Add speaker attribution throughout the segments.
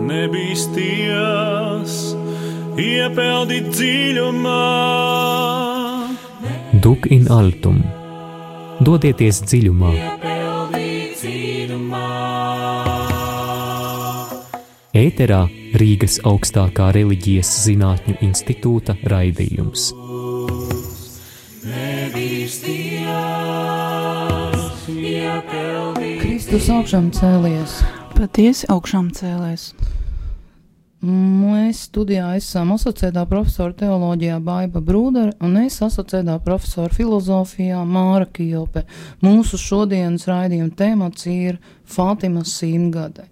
Speaker 1: nebīsties, iepeldīt dziļumā.
Speaker 2: Duk in altum. Dodieties dziļumā. Ēterā Rīgas augstākā reliģijas zinātņu institūta raidījums.
Speaker 3: Kristus augšām cēlies.
Speaker 4: Patiesi augšām cēlies.
Speaker 3: Mēs studijā esam asociētā profesora teoloģijā Baiba Brūdere un es asociētā profesora filozofijā Māra Kijope. Mūsu šodienas raidījuma temats ir Fātimas simtgade.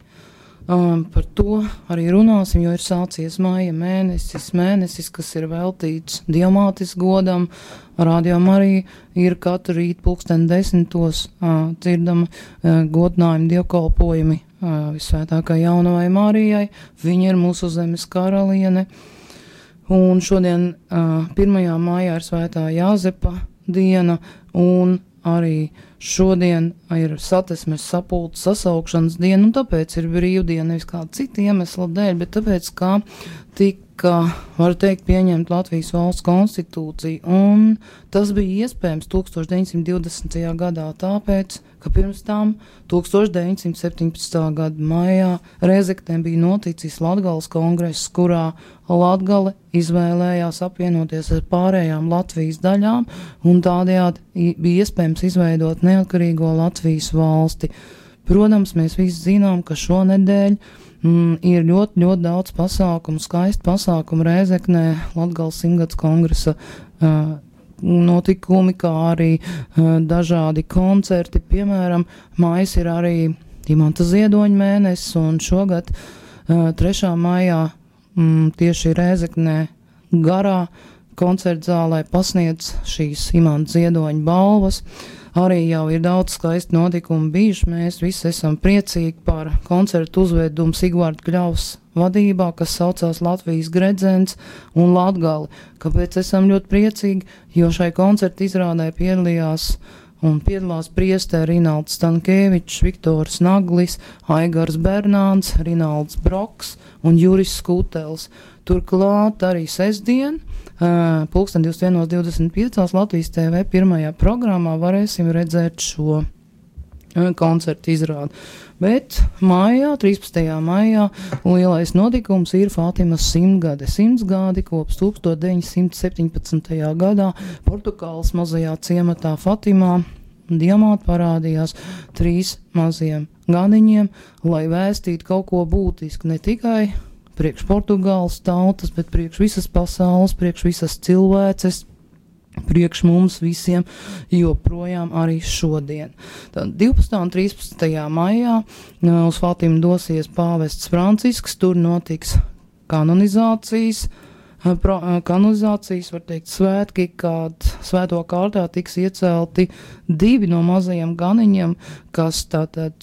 Speaker 3: Par to arī runāsim, jo ir sācies maija mēnesis, kas ir veltīts Dievmātes godam. Rādījumā arī ir katru rītu 10:00 dzirdama godinājuma dievkalpojumi Visvētākajai Jaunavai Marijai. Viņa ir mūsu zemes karaliene. Un šodien 1. maijā ir Svētā Jāzepa diena un arī šodien ir Satversmes sapulces sasaukšanas diena, un tāpēc ir brīvdiena, nevis kāda cita iemesla dēļ, bet tāpēc, kā tika, var teikt, pieņemt Latvijas valsts konstitūciju, un tas bija iespējams 1920. gadā, tāpēc, ka pirms tam 1917. gada maijā Rēzeknē bija noticis Latgales kongress, kurā Latgale izvēlējās apvienoties ar pārējām Latvijas daļām, un tādējādi bija iespējams izveidot neatkarīgo Latvijas valsti. Protams, mēs visi zinām, ka šonedēļ ir ļoti, ļoti daudz pasākumu, skaisti pasākumu Rēzeknē, Latgales simtgades kongresa notikumi, kā arī dažādi koncerti. Piemēram, mājas ir arī Imanta Ziedoņa mēnesis, un šogad 3. maijā tieši Rēzeknē garā koncertzālē pasniedz šīs Imanta Ziedoņa balvas. Arī jau ir daudz skaisti notikumi bijuši. Mēs visi esam priecīgi par koncertu uzvedumu Sigvārda Kļavas vadībā, kas saucās Latvijas gredzens un Latgali. Kāpēc esam ļoti priecīgi? Jo šai koncertu izrādē piedalās priesteri Rinalds Stankēvičs, Viktors Naglis, Aigars Bernāns, Rinalds Broks un Juris Skutels. Turklāt arī sestdien, 21:25 Latvijas TV pirmajā programmā varēsim redzēt šo koncertu izrādi. Bet maijā, 13. maijā, lielais notikums ir Fātimas simtgade. Simtgadi kopš 1917. gadā Portugāles mazajā ciematā Fatimā Dievmāte parādījās 3 maziem ganiņiem, lai vēstītu kaut ko būtisku ne tikai priekš Portugāles tautas, bet priekš visas pasaules, priekš visas cilvēces, priekš mums visiem, joprojām arī šodien. Tad 12. un 13. maijā uz Fātimu dosies pāvests Francisks, tur notiks kanonizācijas, var teikt, svētki, kad svēto kārtā tiks iecelti 2 no mazajiem ganiņiem, kas tātad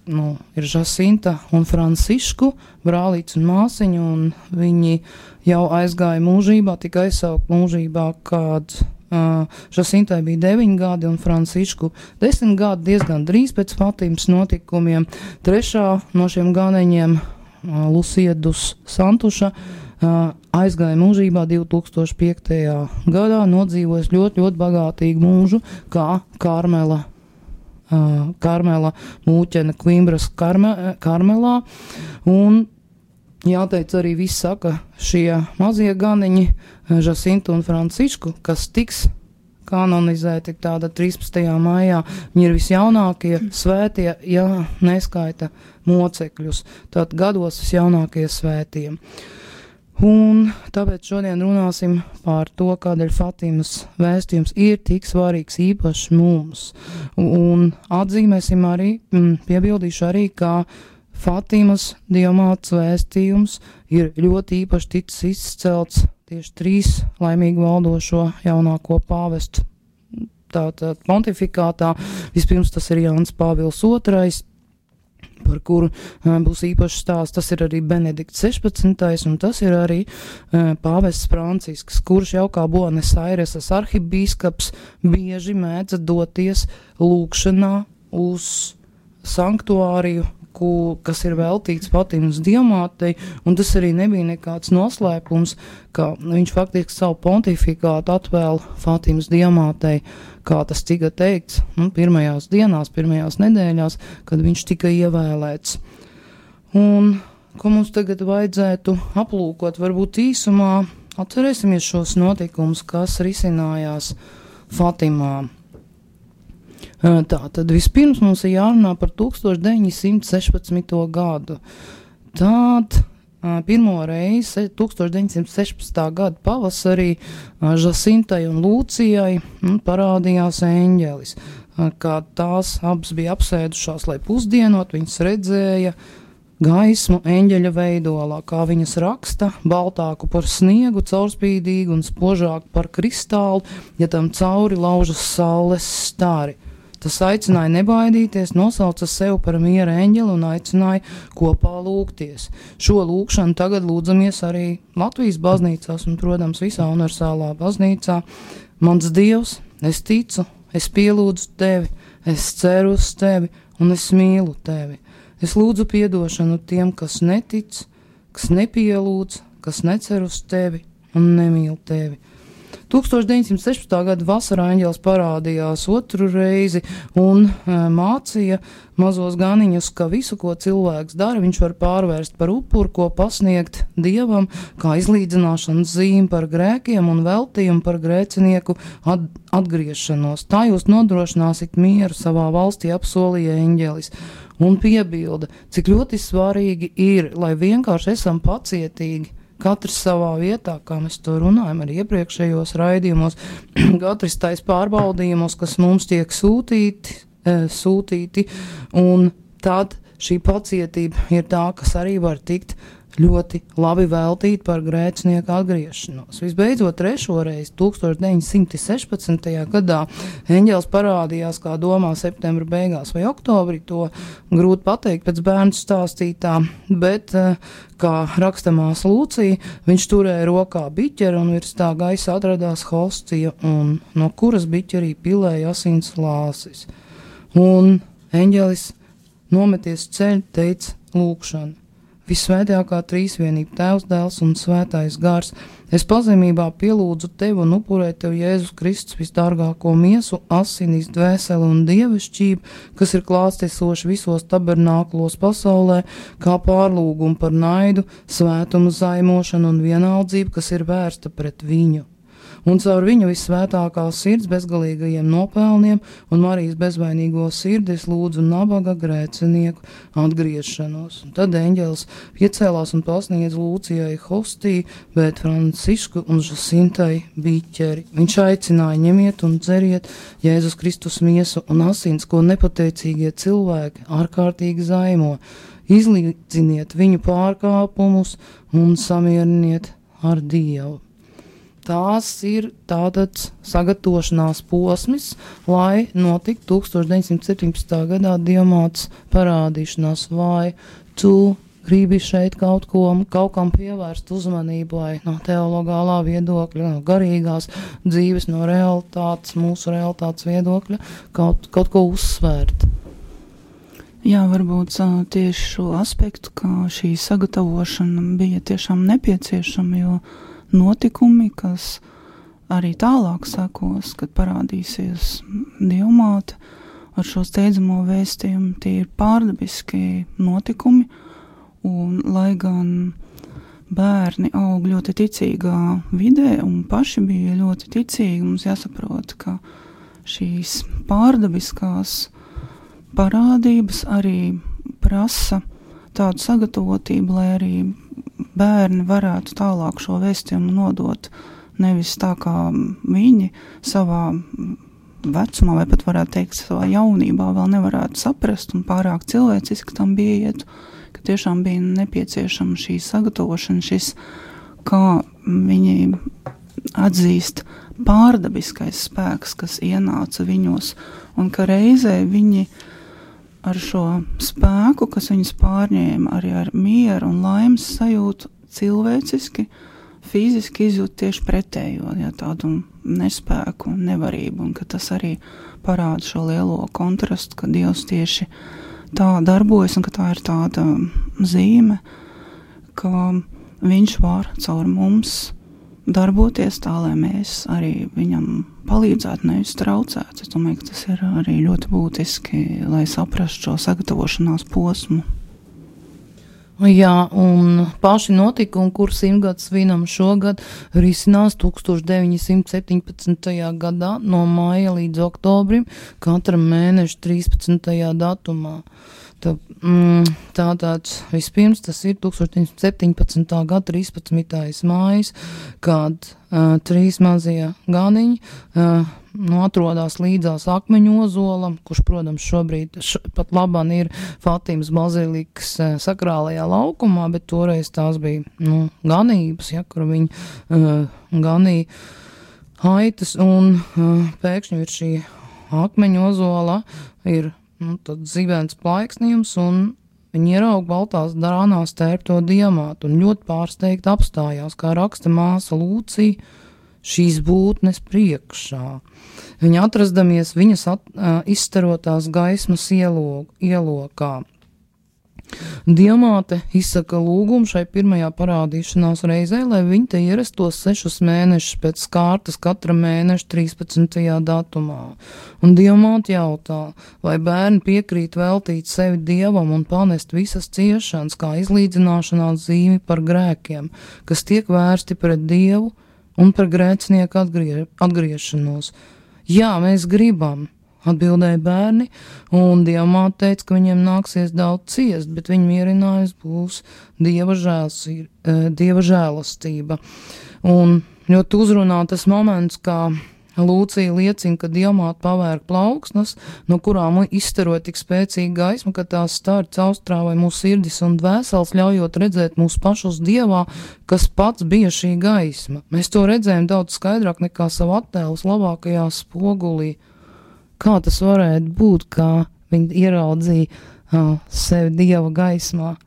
Speaker 3: ir Žasinta un Francišku, brālīts un māsiņa, un viņi jau aizgāja mūžībā, tika aizsaukt mūžībā, kad Žasintai bija 9 gadi un Francišku 10 gadi, diezgan drīz pēc Fatimas notikumiem. 3. no šiem ganiņiem, Lusiedus Santuša, aizgāja mūžībā 2005. gadā, nodzīvojas ļoti, ļoti bagātīgu mūžu, kā Karmela mūķene Kvimbras Karmelā, un jāteic arī viss saka, šie mazie ganiņi, Žasinta un Francišku, kas tiks kanonizēti tāda 13. maijā, viņi ir visjaunākie svētie, ja neskaita mocekļus, tad gados visjaunākie svētie. Un tāpēc šodien runāsim par to, kādēļ Fatimas vēstījums ir tik svarīgs īpaši mums. Un atzīmēsim arī, piebildīšu arī, ka Fatimas Dievmātes vēstījums ir ļoti īpaši ticis izcelts tieši 3 laimīgi valdošo jaunāko pāvestu tātad pontifikātā. Vispirms tas ir Jānis Pāvils II, par kuru būs īpašs stāsts. Tas ir arī Benedikts 16. un tas ir arī pāvests Francisks, kurš jau kā Buenos Aireses arhibīskaps bieži mēdza doties lūkšanā uz sanktuāriju, kas ir veltīts Fatimas diamātei, un tas arī nebija nekāds noslēpums, ka viņš faktiski savu pontifikātu atvēl Fatimas diamātei, kā tas tika teikts, pirmajās dienās, pirmajās nedēļās, kad viņš tika ievēlēts. Un ko mums tagad vajadzētu aplūkot, varbūt īsumā atcerēsimies šos notikumus, kas risinājās Fatimā. Tā, tad vispirms mums ir jārunā par 1916. gadu. Tad pirmo reizi 1916. gada pavasarī Žasintai un Lūcijai parādījās eņģelis. Kad tās abas bija apsēdušās, lai pusdienot, viņas redzēja gaismu eņģeļa veidolā, kā viņas raksta, baltāku par sniegu, caurspīdīgu un spožāku par kristālu, ja tam cauri laužas saules stari. Tas aicināja nebaidīties, nosauca sev par miera eņģeli un aicināja kopā lūgties. Šo lūgšanu tagad lūdzamies arī Latvijas baznīcās un, protams, visā universālā baznīcā. Mans Dievs, es ticu, es pielūdzu tevi, es ceru uz tevi un es mīlu tevi. Es lūdzu piedošanu tiem, kas netic, kas nepielūdz, kas necer uz tevi un nemīl tevi. 1916. gada vasarā eņģelis parādījās otru reizi un mācīja mazos ganiņus, ka visu, ko cilvēks dara, viņš var pārvērst par upuru, ko pasniegt Dievam, kā izlīdzināšanas zīmi par grēkiem un veltījumu par grēcinieku atgriešanos. Tā jūs nodrošināsiet mieru savā valstī, apsolīja eņģelis. Un piebilda, cik ļoti svarīgi ir, lai vienkārši esam pacietīgi, katrs savā vietā, kā mēs to runājam arī iepriekšējos raidījumos, katrs tais pārbaudījumos, kas mums tiek sūtīti, un tad šī pacietība ir tā, kas arī var tikt ļoti labi veltīt par grēcinieku atgriešanos. Visbeidzot, trešoreiz 1916. gadā eņģelis parādījās, kā domā, septembra beigās vai oktobrī, to grūti pateikt pēc bērnu stāstītā, bet, kā rakstamās Lūcija, viņš turēja rokā biķeri un virs tā gaisa atradās hostija, un no kuras biķerī pilēja asins lāsis. Un eņģelis nometies ceļu teica lūgšanu. Visvētākā trīsvienība, Tēvs, Dēls un Svētais Gars, es pazemībā pielūdzu tevi un upurēju tev Jēzus Kristus visdārgāko miesu, asinīs, dvēseli un dievišķību, kas ir klātiesoši visos tabernāklos pasaulē, kā pārlūgumu par naidu, svētumu zaimošanu un vienaldzību, kas ir vērsta pret viņu. Un caur viņu visvētākās sirds bezgalīgajiem nopelniem un Marijas bezvainīgo sirdi es lūdzu nabaga grēcinieku atgriešanos. Un tad eņģelis piecēlās un pasniedz Lūcijai hostiju, bet Francisku un Žasintai biķeri. Viņš aicināja ņemiet un dzeriet Jēzus Kristus miesu un asins, ko nepateicīgie cilvēki ārkārtīgi zaimo. Izlīdziniet viņu pārkāpumus un samieriniet ar Dievu. Tās ir tātad sagatavošanās posms, lai notiktu 1917. gadā diamāts parādīšanās, vai tu gribi šeit kaut kam pievērst uzmanību, vai no teologālā viedokļa, no garīgās dzīves, no realitātes, mūsu realitātes viedokļa, kaut ko uzsvērt.
Speaker 4: Jā, varbūt tieši šo aspektu, ka šī sagatavošana bija tiešām nepieciešama, jo notikumi, kas arī tālāk sekos, kad parādīsies diamāte ar šo steidzamo vēstījumu, tie ir pārdabiski notikumi, un lai gan bērni aug ļoti ticīgā vidē un paši bija ļoti ticīgi, mums jāsaprot, ka šīs pārdabiskās parādības arī prasa tādu sagatavotību, lai arī bērni varētu tālāk šo vēstījumu nodot, nevis tā kā viņi savā vecumā, vai pat varētu teikt savā jaunībā vēl nevarētu saprast un pārāk cilvēciski tam bija iet, ka tiešām bija nepieciešama šī sagatavošana, šis, kā viņi atzīst pārdabiskais spēks, kas ienāca viņos, un ka reizē viņi ar šo spēku, kas viņus pārņēma arī ar mieru un laimes sajūtu cilvēciski, fiziski izjūt tieši pretējo, ja, tādu nespēku, nevarību, un ka tas arī parāda šo lielo kontrastu, ka Dievs tieši tā darbojas un ka tā ir tāda zīme, ka viņš var caur mums darboties tā, lai mēs arī viņam palīdzētu, nevis traucētu. Es domāju, ka tas ir arī ļoti būtiski, lai saprastu šo sagatavošanās posmu.
Speaker 3: Jā, un paši notikumi, kur 100 svinam šogad, risinās 1917. gadā no māja līdz oktobrim, katra mēneša 13. datumā. Tātad vispirms tas ir 1917. gada 13. mājas, kad 3 mazie ganiņi atrodas līdzās Akmeņu ozolam, kurš, protams, šobrīd pat labāk ir Fatimas bazilikas sakrālajā laukumā, bet toreiz tās bija ganības, kur viņi ganīja aitas, un pēkšņi ir šī Akmeņu ozola ir tad zibens plaiksnījums, un viņi ieraug baltās drānās tērpto diamātu, un ļoti pārsteigti apstājās, kā raksta māsa Lūcija, šīs būtnes priekšā. Viņa atrastamies viņas izstarotās gaismas ielokā. Diamāte izsaka lūgumu šai pirmajā parādīšanās reizē, lai viņi te ierastos 6 mēnešus pēc kārtas katra mēneša 13. datumā. Un Diamāte jautā, vai bērni piekrīt veltīt sevi Dievam un panest visas ciešanas kā izlīdzināšanās zīmi par grēkiem, kas tiek vērsti pret Dievu un par grēcinieku atgriešanos. Jā, mēs gribam, atbildēja bērni, un Diamāte teica, ka viņiem nāksies daudz ciest, bet viņa mierinājums būs Dieva žēlastība. Un ļoti uzrunā tas moments, kā Lūcija liecina, ka Diamāte pavērk plauksnes, no kurām izstaro tik spēcīga gaisma, ka tās stāri caurstrāvai mūsu sirdis un dvēseles, ļaujot redzēt mūsu pašus Dievā, kas pats bija šī gaisma. Mēs to redzējām daudz skaidrāk nekā savu attēlus labākajā spogulī. Kā tas varētu būt, kā viņi ieraudzīja sevi Dieva gaismā?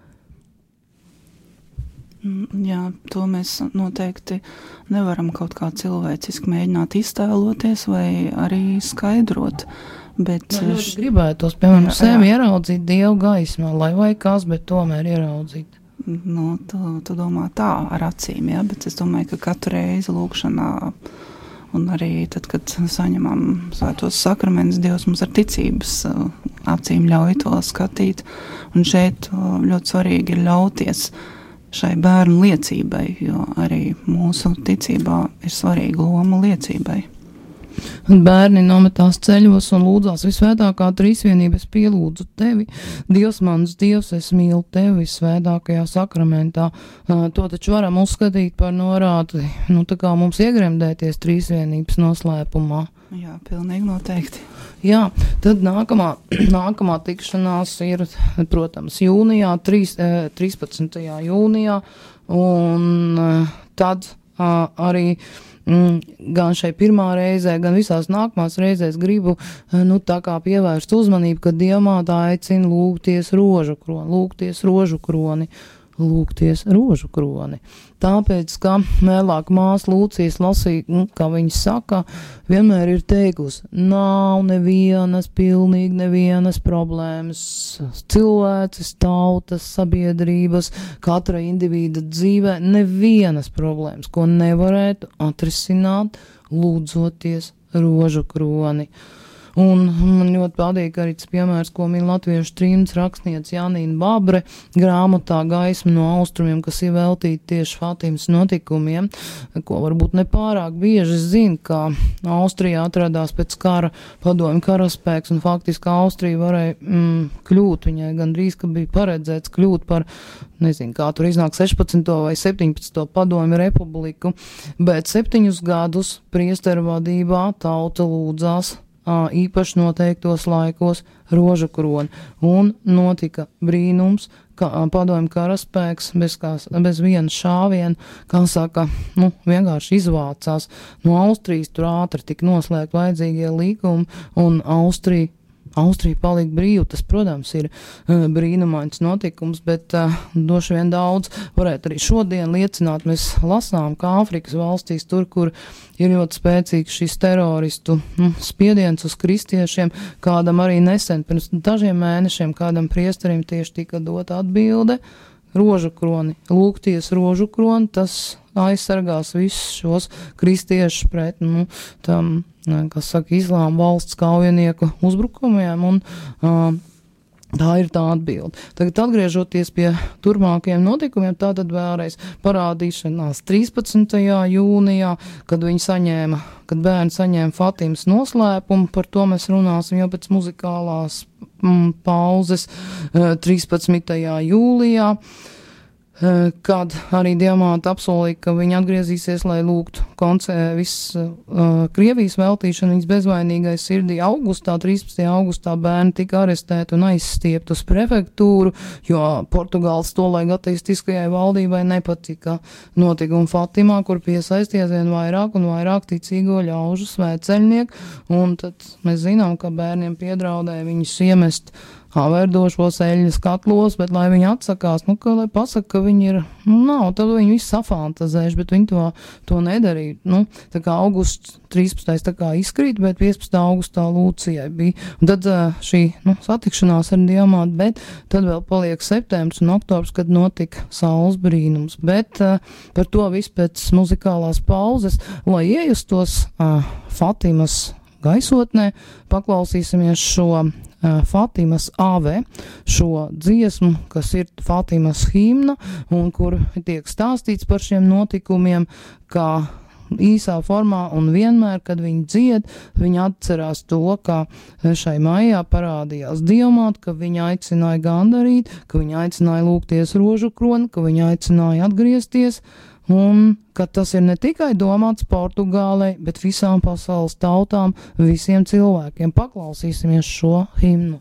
Speaker 4: Jā, to mēs noteikti nevaram kaut kā cilvēciski mēģināt iztēloties vai arī skaidrot. Bet
Speaker 3: ļoti gribētos, piemēram, sevi ieraudzīt Dieva gaismā, lai vai kas, bet tomēr ieraudzīt.
Speaker 4: Tu domā tā ar acīm, jā, bet es domāju, ka katru reizi lūkšanā un arī tad, kad saņemam svētos sakramentus, Dievs mums ar ticības acīm ļauj to skatīt. Un šeit ļoti svarīgi ir ļauties šai bērnu liecībai, jo arī mūsu ticībā ir svarīga loma liecībai.
Speaker 3: Bērni nometās ceļos un lūdzās visvētākā trīsvienības pielūdzu tevi. Dievs mans Dievs, es mīlu tevi visvētākajā sakramentā. To taču varam uzskatīt par norādi, tā kā mums iegremdēties trīsvienības noslēpumā.
Speaker 4: Jā, pilnīgi noteikti.
Speaker 3: Jā, tad nākamā tikšanās ir, protams, jūnijā, 13. jūnijā, un tad arī gan šai pirmā reizē, gan visās nākamās reizēs gribu tā kā pievērst uzmanību, ka Diamāte aicina lūgties rožu kroni. Tāpēc, ka vēlāk māsa Lūcijas lasīja, kā viņa saka, vienmēr ir teikusi, nav pilnīgi nevienas problēmas, cilvēces, tautas, sabiedrības, katra individa dzīvē, nevienas problēmas, ko nevarētu atrisināt, lūdzoties rožu kroni. Un man ļoti patīk arī tas piemērs, ko min latviešu trimdas rakstniece Janīna Babre grāmatā Gaisma no austrumiem, kas ir veltīta tieši Fatimas notikumiem, ko varbūt nepārāk bieži zina, ka Austrijā atradās pēc kara padomju karaspēks, un faktiski Austrija varēja kļūt, viņai gandrīz, ka bija paredzēts kļūt par, nezinu, kā tur iznāk 16. vai 17. padomju republiku, bet 7 gadus priesteru vadībā tauta lūdzās īpaši noteiktos laikos rožu kroni, un notika brīnums, ka padomju karaspēks bez viena šāviena, kā saka, vienkārši izvācās no Austrijas, tur ātri tika noslēgt vajadzīgie līgumi, un Austrija Austrija palika brīva. Tas, protams, ir brīnumains notikums, bet droši vien daudz varētu arī šodien liecināt. Mēs lasām, ka Āfrikas valstīs, tur, kur ir ļoti spēcīgs šis teroristu spiediens uz kristiešiem, kādam arī nesen, pirms dažiem mēnešiem, kādam priesterim tieši tika dota atbilde, rožu kroni, lūgties rožu kroni, tas aizsargās visus šos kristiešus pret, tam, kas saka, islāma valsts kaujinieku uzbrukumiem, un tā ir tā atbilde. Tagad atgriežoties pie turpmākajiem notikumiem, tātad vēlreiz parādīšanās 13. jūnijā, kad bērni saņēma Fatimas noslēpumu, par to mēs runāsim jau pēc muzikālās pauzes 13. jūlijā, kad arī Diamāta apsolīja, ka viņa atgriezīsies, lai lūgtu Krievijas veltīšanu viņas bezvainīgai sirdī. 13. augustā bērni tika arestēti un aizstiepti uz prefektūru, jo Portugāles tolaik ateistiskajai valdībai nepatika notikumi Fatimā, kur piesaisties vien vairāk un vairāk ticīgo ļaužu svētceļnieku, un tad mēs zinām, ka bērniem piedraudēja viņus iemest verdošos eļļas katlos, bet lai viņi atsakās, lai pasaka, ka viņi ir, tad viņi visu safantazējuši, bet viņi to nedarīja. Tā kā augusts 13. tā kā izkrīt, bet 15. augustā Lūcijai bija. Un tad šī satikšanās ar Diamātu, bet tad vēl paliek septembris un oktobrs, kad notika saules brīnums. Bet par to visu pēc muzikālās pauzes, lai iejustos Fatimas gaisotnē, paklausīsimies šo Fatimas āve, šo dziesmu, kas ir Fatimas himna, un kur tiek stāstīts par šiem notikumiem, kā īsā formā, un vienmēr, kad viņi dzied, viņi atcerās to, ka šai maijā parādījās Diamāta, ka viņa aicināja gandarīt, ka viņa aicināja lūgties rožu kroni, ka viņa aicināja atgriezties, un ka tas ir ne tikai domāts Portugālei, bet visām pasaules tautām, visiem cilvēkiem. Paklausīsimies šo himnu.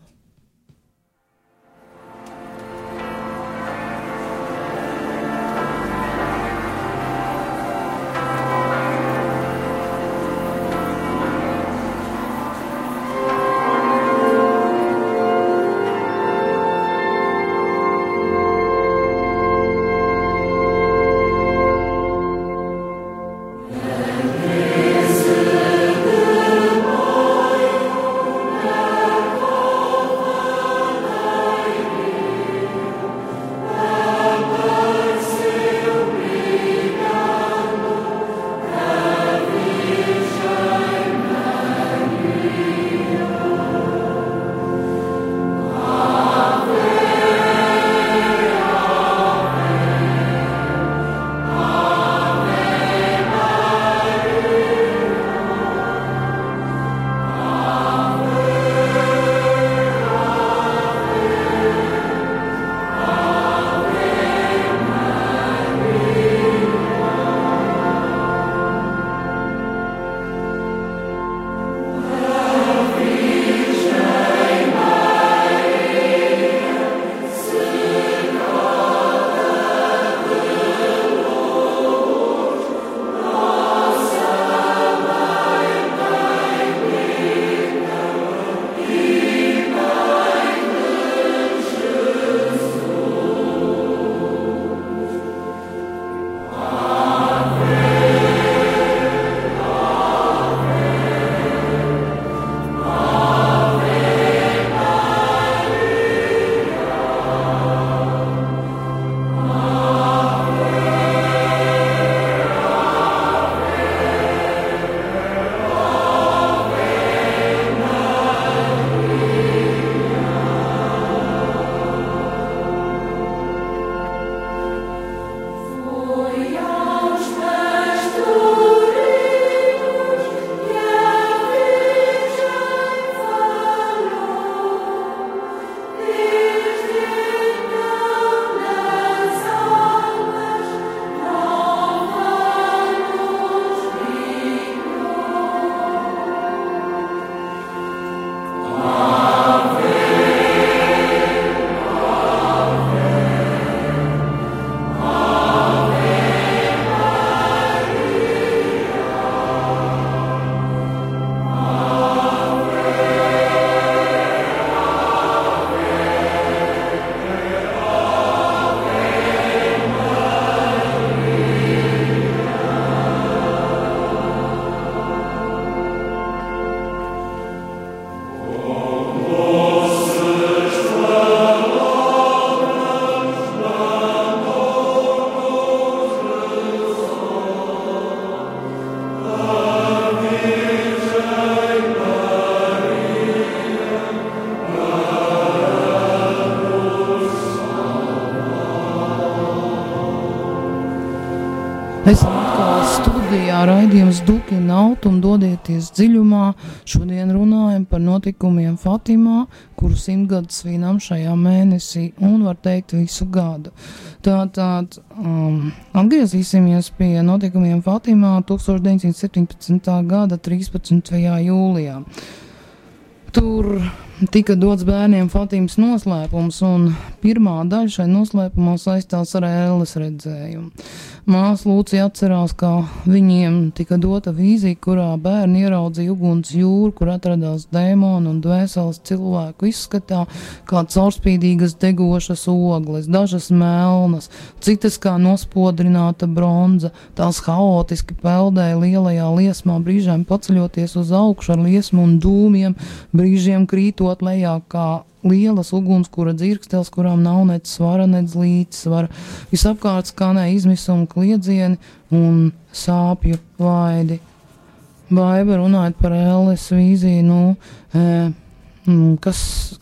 Speaker 3: Esam atkal studijā, raidījums Dukina Autum, dodieties dziļumā. Šodien runājam par notikumiem Fatimā, kuru 100 gadu svinam šajā mēnesī un var teikt visu gadu. Tātad atgriezīsimies pie notikumiem Fatimā 1917. gada 13. jūlijā. Tur tika dots bērniem Fatimas noslēpums, un pirmā daļa šai noslēpumā saistās ar ēles redzējumu. Māsa Lūcija atcerās, ka viņiem tika dota vīzija, kurā bērni ieraudzīja uguns jūru, kur atradās dēmoni un dvēseles cilvēku izskatā, kā caurspīdīgas degošas ogles, dažas melnas, citas kā nospodrināta bronza. Tās haotiski peldēja lielajā liesmā, brīžiem paceļoties uz augšu ar liesmu un dūmiem, brīžiem krītot lejā kā lielas ugunskura dzirkstels, kurām nav nec svara, nec līdzsvara. Visapkārt skanēja izmisuma kliedzieni un sāpju vaidi. Baiba runājot par ēles vīziju,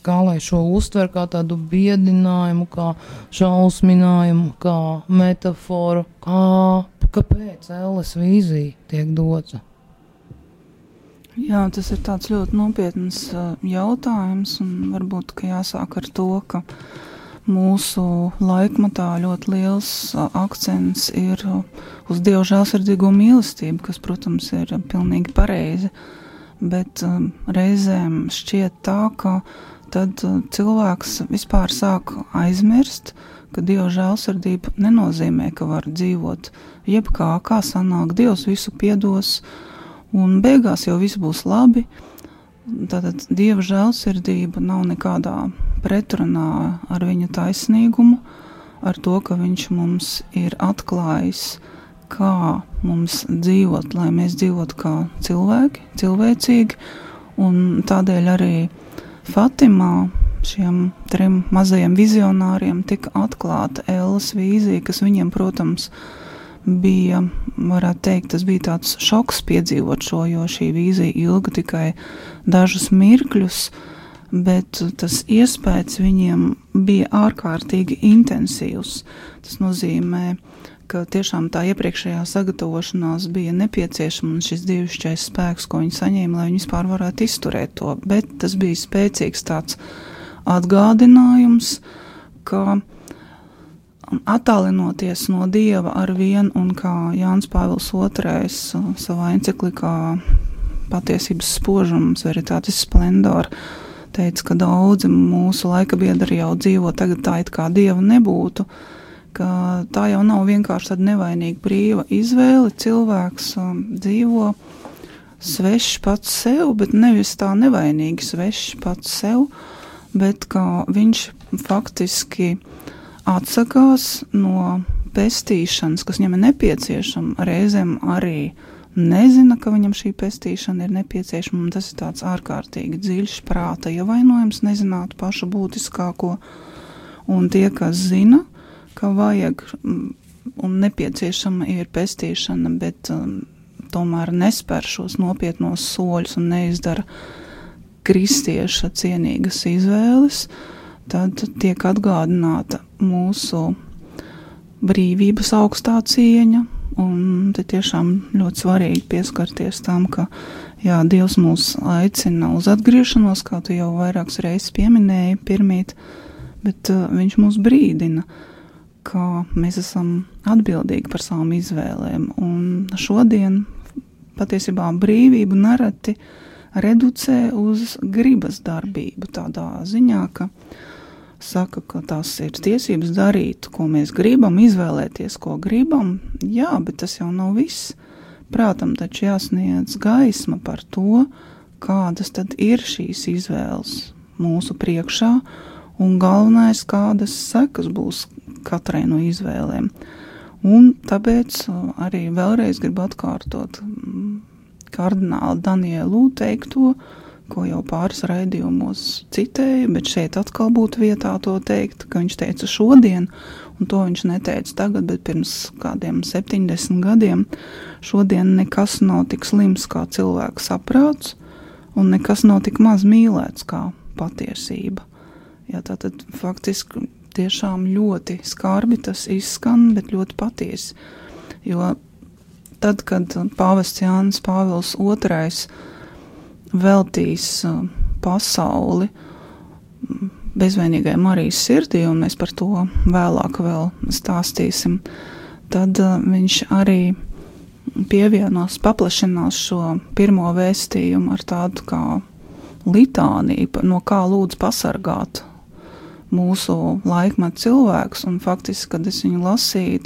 Speaker 3: kā lai šo uztver, kā tādu biedinājumu, kā šausminājumu, kā metaforu, kāpēc ēles vīzija tiek dota?
Speaker 4: Jā, tas ir tāds ļoti nopietns jautājums, un varbūt, ka jāsāk ar to, ka mūsu laikmatā ļoti liels akcents ir uz Dieva žēlsirdīgo mīlestību, kas, protams, ir pilnīgi pareizi, bet reizēm šķiet tā, ka tad cilvēks vispār sāk aizmirst, ka Dieva žēlsirdība nenozīmē, ka var dzīvot jebkā sanāk, Dievs visu piedos, un beigās jau viss būs labi. Tātad Dieva žēlsirdība nav nekādā pretrunā ar viņa taisnīgumu, ar to, ka viņš mums ir atklājis, kā mums dzīvot, lai mēs dzīvotu kā cilvēki, cilvēcīgi, un tādēļ arī Fatimā šiem 3 mazajiem vizionāriem tika atklāta ēles vīzija, kas viņiem, protams, bija, varētu teikt, tas bija tāds šoks piedzīvot šo, jo šī vīzija ilga tikai dažus mirkļus, bet tas iespējas viņiem bija ārkārtīgi intensīvs. Tas nozīmē, ka tiešām tā iepriekšējā sagatavošanās bija nepieciešama, un šis dievišķais spēks, ko viņi saņēma, lai viņi vispār varētu izturēt to, bet tas bija spēcīgs tāds atgādinājums, ka attālinoties no Dieva ar vienu, un kā Jānis Pāvils II savā enciklikā Patiesības spožums, Veritatis Splendor, teica, ka daudzi mūsu laika biedri jau dzīvo tagad tā, it kā Dieva nebūtu, ka tā jau nav vienkārši tāda nevainīga brīva izvēle, cilvēks dzīvo svešs pats sev, bet nevis tā nevainīgi svešs pats sev, bet kā viņš faktiski atsakās no pestīšanas, kas viņam ir nepieciešama, reizēm arī nezina, ka viņam šī pestīšana ir nepieciešama, un tas ir tāds ārkārtīgi dziļš prāta ievainojums, nezināt pašu būtiskāko, un tie, kas zina, ka vajag un nepieciešama ir pestīšana, bet tomēr nespēr šos nopietnos soļus un neizdara kristieša cienīgas izvēles, tad tiek atgādināta mūsu brīvības augstā cieņa, un te tiešām ļoti svarīgi pieskarties tam, ka jā, Dievs mūs aicina uz atgriešanos, kā tu jau vairākas reizes pieminēji pirmīt, bet viņš mūs brīdina, ka mēs esam atbildīgi par savām izvēlēm, un šodien patiesībā brīvību nereti reducē uz gribas darbību tādā ziņā, ka saka, ka tās ir tiesības darīt, ko mēs gribam, izvēlēties, ko gribam. Jā, bet tas jau nav viss. Prātam taču jāsniedz gaisma par to, kādas tad ir šīs izvēles mūsu priekšā, un galvenais, kādas sekas būs katrai no izvēlēm. Un tāpēc arī vēlreiz gribu atkārtot kardināla Danielu teikto, ko jau pāris raidījumos citēju, bet šeit atkal būtu vietā to teikt, ka viņš teica šodien, un to viņš neteica tagad, bet pirms kādiem 70 gadiem, šodien nekas nav tik slims kā cilvēka saprāts, un nekas nav tik maz mīlēts kā patiesība. Jā, tātad faktiski tiešām ļoti skarbi tas izskan, bet ļoti patiesi, jo tad, kad pāvests Jānis Pāvils II veltīs pasauli bezvainīgai Marijas sirdī, un mēs par to vēlāk vēl stāstīsim, tad viņš arī paplašinās šo pirmo vēstījumu ar tādu kā litāniju, no kā lūdz pasargāt mūsu laikmetu cilvēkus, un faktiski, kad es viņu lasīju,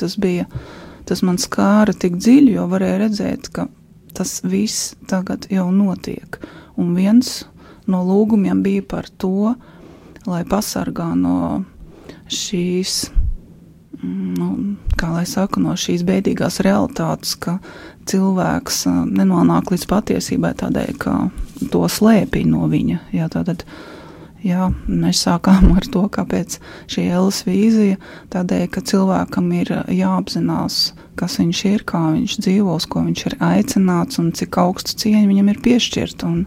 Speaker 4: tas man skāra tik dziļi, jo varēja redzēt, ka tas viss tagad jau notiek. Un viens no lūgumiem bija par to, lai pasargā no šīs, no šīs bēdīgās realitātes, ka cilvēks nenonāk līdz patiesībai tādēļ, ka to slēpj no viņa. Mēs sākām ar to, kāpēc šī Elles vīzija, tādēļ, ka cilvēkam ir jāapzinās, kas viņš ir, kā viņš dzīvos, ko viņš ir aicināts un cik augstu cieņu viņam ir piešķirt, un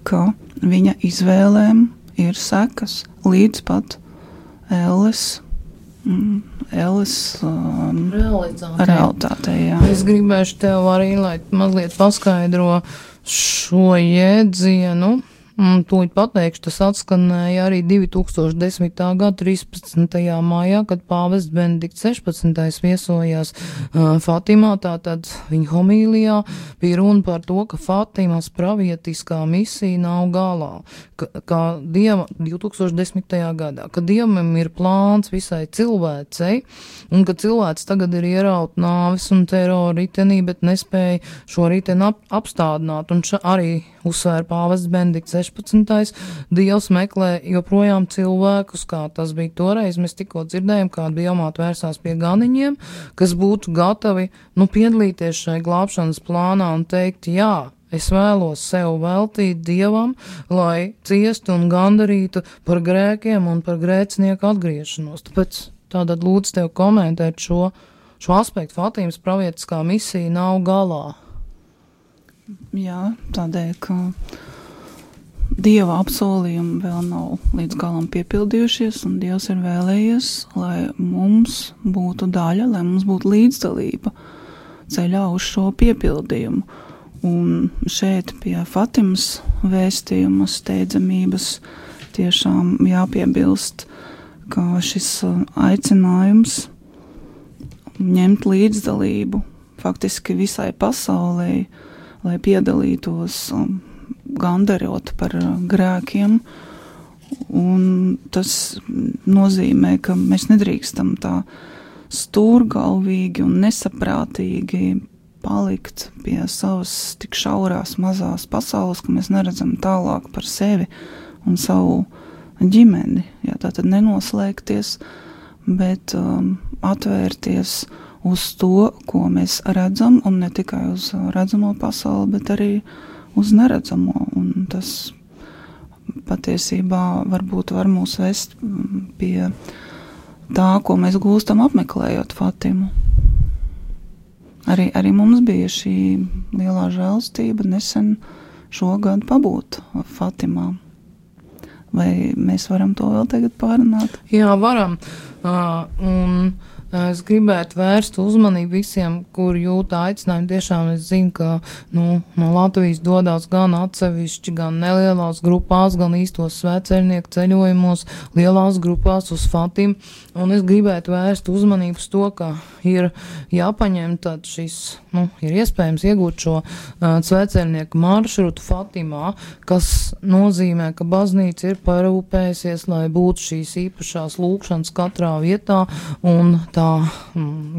Speaker 4: ka viņa izvēlēm ir sekas līdz pat Elles realitātei. Jā.
Speaker 3: Es gribēšu tev arī, lai mazliet paskaidro šo jēdzienu. Tūlīt pateikšu, tas atskanēja arī 2010. gada 13. maijā, kad pāvests Benedikts 16. viesojās Fatimā, tātad viņa homīlijā bija runa par to, ka Fatimas pravietiskā misija nav galā, kā Dieva 2010. gadā, ka Dievam ir plāns visai cilvēcei, un ka cilvēks tagad ir ieraut nāvis un terora ritenī, bet nespēja šo riteni apstādināt, un arī uzsvēra pāvests Benedikts 16. Dievs meklē joprojām cilvēkus, kā tas bija toreiz. Mēs tikko dzirdējām, kā dievmāte vērsās pie ganiņiem, kas būtu gatavi piedalīties šai glābšanas plānā un teikt, jā, es vēlos sev veltīt Dievam, lai ciestu un gandarītu par grēkiem un par grēcinieku atgriešanos. Tāpēc tātad lūdzu tev komentēt šo aspektu. Fatimas pravietiskā misija nav galā.
Speaker 4: Jā, tādēļ, ka Dieva apsolījumi vēl nav līdz galam piepildījušies, un Dievs ir vēlējies, lai mums būtu daļa, lai mums būtu līdzdalība ceļā uz šo piepildījumu. Un šeit pie Fatimas vēstījuma steidzamības tiešām jāpiebilst, ka šis aicinājums ņemt līdzdalību faktiski visai pasaulē, lai piedalītos gandarot par grēkiem, un tas nozīmē, ka mēs nedrīkstam tā stūrgalvīgi un nesaprātīgi palikt pie savas tik šaurās mazās pasaules, ka mēs neredzam tālāk par sevi un savu ģimeni. Jā, tātad nenoslēgties, bet atvērties uz to, ko mēs redzam, un ne tikai uz redzamo pasauli, bet arī uz neredzamo, un tas patiesībā varbūt var mūs vest pie tā, ko mēs gūstam apmeklējot Fatimu. Arī mums bija šī lielā žēlstība nesen šogad pabūt Fatimā. Vai mēs varam to vēl tagad pārunāt?
Speaker 3: Jā, varam. Un es gribētu vērst uzmanību visiem, kur jūt aicinājumu. Tiešām es zinu, ka no Latvijas dodās gan atsevišķi, gan nelielās grupās, gan īstos svētceļnieku ceļojumos, lielās grupās uz Fatimu. Un es gribētu vērst uzmanību uz to, ka ir jāpaņem tad šis, ir iespējams iegūt šo svētceļnieku maršrutu Fatimā, kas nozīmē, ka baznīca ir parūpējusies, lai būtu šīs īpašās lūkšanas katrā vietā, un tā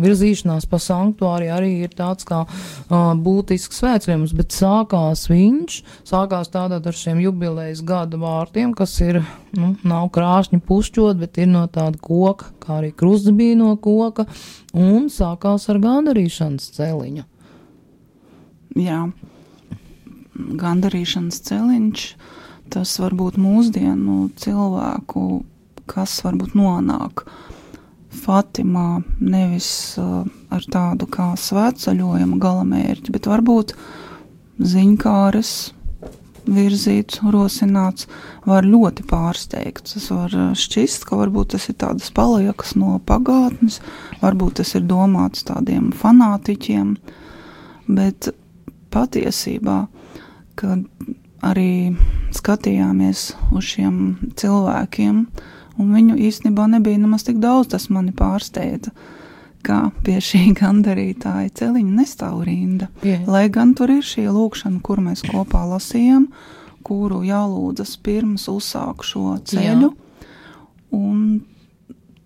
Speaker 3: virzīšanās pa sanktuāri arī ir tāds kā būtisks svētceļojums, bet sākās tātad ar šiem jubilejas gada vārtiem, kas ir, nav krāšņi pušķot, bet ir no tāda koka, kā arī krusts bija no koka, un sākās ar gandarīšanas celiņu.
Speaker 4: Jā, gandarīšanas celiņš, tas varbūt mūsdienu cilvēku, kas varbūt nonāk Fatimā nevis ar tādu kā svētceļojuma galamērķi, bet varbūt ziņkāres virzīts, rosināts, var ļoti pārsteigt. Tas var šķist, ka varbūt tas ir tādas paliekas no pagātnes, varbūt tas ir domāts tādiem fanātiķiem, bet patiesībā, kad arī skatījāmies uz šiem cilvēkiem, un viņu īstenībā nebija nemaz tik daudz, tas mani pārsteidza, kā pie šī gandarītāja celiņa nestāv rinda. Lai gan tur ir šī lūkšana, kur mēs kopā lasījām, kuru jālūdzas pirms uzsāk šo ceļu, un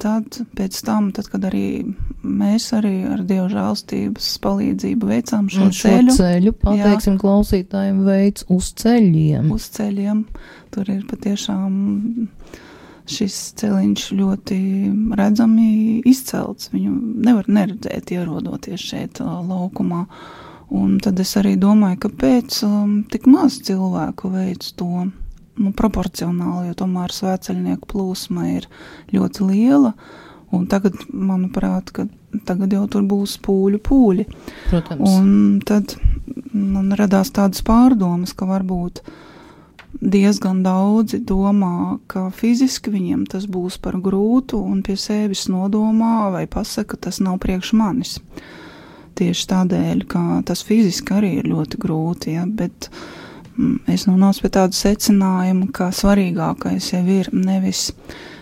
Speaker 4: tad, pēc tam, kad arī mēs arī ar Dieva žēlstības palīdzību veicām šo ceļu,
Speaker 3: pateiksim klausītājiem, veids uz ceļiem.
Speaker 4: Uz ceļiem. Tur ir patiešām šis celiņš ļoti redzami izcelts. Viņu nevar neredzēt, ierodoties šeit laukumā. Un tad es arī domāju, kāpēc tik maz cilvēku veic to, proporcionāli, jo tomēr svētceļnieku plūsma ir ļoti liela, un tagad, manuprāt, ka tagad jau tur būs pūļi.
Speaker 3: Protams.
Speaker 4: Un tad man radās tādas pārdomas, ka varbūt diezgan daudzi domā, ka fiziski viņiem tas būs par grūtu, un pie sevis nodomā vai pasaka, tas nav priekš manis. Tieši tādēļ, ka tas fiziski arī ir ļoti grūti, bet es nonācu pie tādu secinājumu, ka svarīgākais jau ir nevis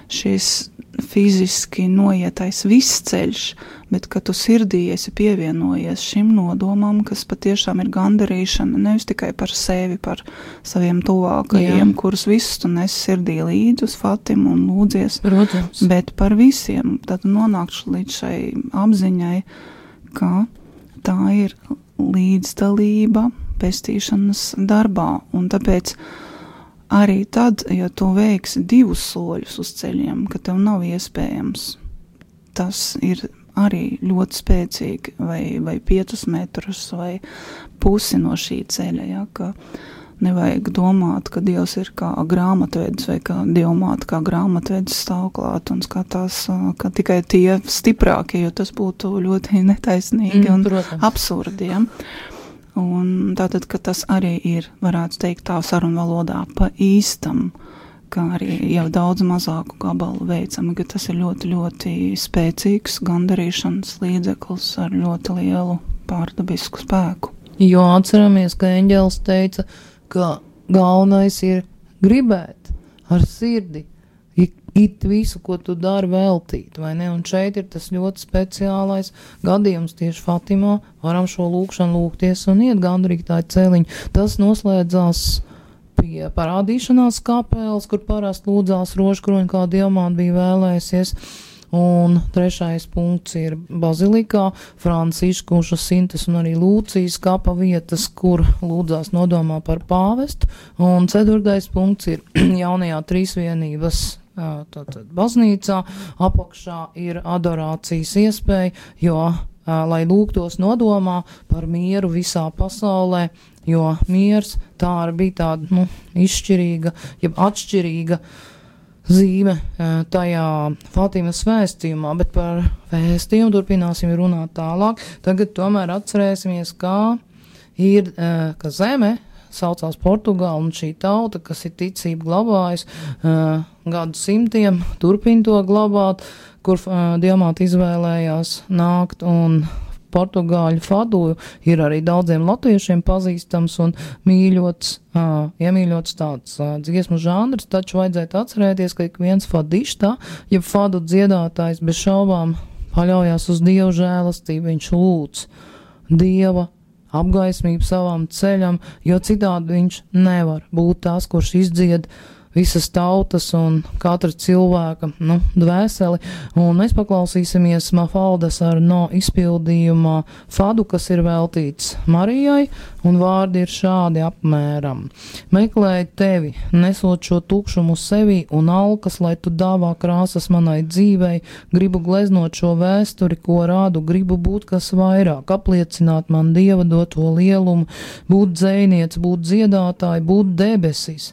Speaker 4: šis fiziski noietais viss ceļš, bet ka tu sirdī esi pievienojies šim nodomam, kas patiešām ir gandarīšana, nevis tikai par sevi, par saviem tuvākajiem, kurus visus tu nes sirdī līdzi uz Fatimu un lūdzies,
Speaker 3: Protams.
Speaker 4: Bet par visiem. Tad nonākšu līdz šai apziņai, ka tā ir līdzdalība pestīšanas darbā, un tāpēc arī tad, ja tu veiksi 2 soļus uz ceļiem, ka tev nav iespējams, tas ir arī ļoti spēcīgi, vai 5 metrus, vai pusi no šī ceļa, ja, ka nevajag domāt, ka Dievs ir kā grāmatvedis, vai kā Dievmāte kā grāmatvedis stāv klāt un skatās, ka tikai tie stiprākie, jo tas būtu ļoti netaisnīgi un absurdi, ja. Un tātad, ka tas arī ir, varētu teikt tā sarunvalodā, pa īstam, ka arī jau daudz mazāku gabalu veicam, ka tas ir ļoti, ļoti spēcīgs gandarīšanas līdzeklis ar ļoti lielu pārdabisku spēku.
Speaker 3: Jo atceramies, ka eņģelis teica, ka galvenais ir gribēt ar sirdi, it visu, ko tu dari veltīt, vai ne? Un šeit ir tas ļoti speciālais gadījums tieši Fatimā, varam šo lūkšanu lūgties un iet gandarītāju celiņu. Tas noslēdzās pie parādīšanās kapeles, kur parasti lūdzās rožkroņi, kā Dievmāte bija vēlējusies. Un 3. punkts ir bazilikā, Franciškuša, Sintes un arī Lūcijas kapa vietas, kur lūdzās nodomā par pāvestu. Un 4. punkts ir jaunajā trīsvienības tātad baznīcā, apakšā ir adorācijas iespēja, jo, lai lūgtos nodomā par mieru visā pasaulē, jo miers tā bija tāda, izšķirīga, jeb atšķirīga zīme tajā Fatimas vēstījumā, bet par vēstījumu turpināsim runāt tālāk. Tagad tomēr atcerēsimies, kā ir, ka zeme saucās Portugāla, un šī tauta, kas ir ticību glabājusi gadu simtiem, turpina to glabāt, kur Dievmāte izvēlējās nākt, un portugāļu fadu ir arī daudziem latviešiem pazīstams un iemīļots tāds dziesmu žanrs, taču vajadzētu atcerēties, ka ik viens fadištā, ja fadu dziedātājs bez šaubām paļaujās uz Dieva žēlastību, viņš lūdz Dieva apgaismību savam ceļam, jo citādi viņš nevar būt tās, kurš izdzied visas tautas un katra cilvēka dvēseli. Un mēs paklausīsimies Mafaldas Arno izpildījumā fadu, kas ir veltīts Marijai, un vārdi ir šādi apmēram. Meklēju tevi, nesot šo tukšumu sevī un alkas, lai tu dāvā krāsas manai dzīvei, gribu gleznot šo vēsturi, ko rādu, gribu būt kas vairāk, apliecināt man Dieva doto lielumu, būt dzejniec, būt dziedātāji, būt debesis,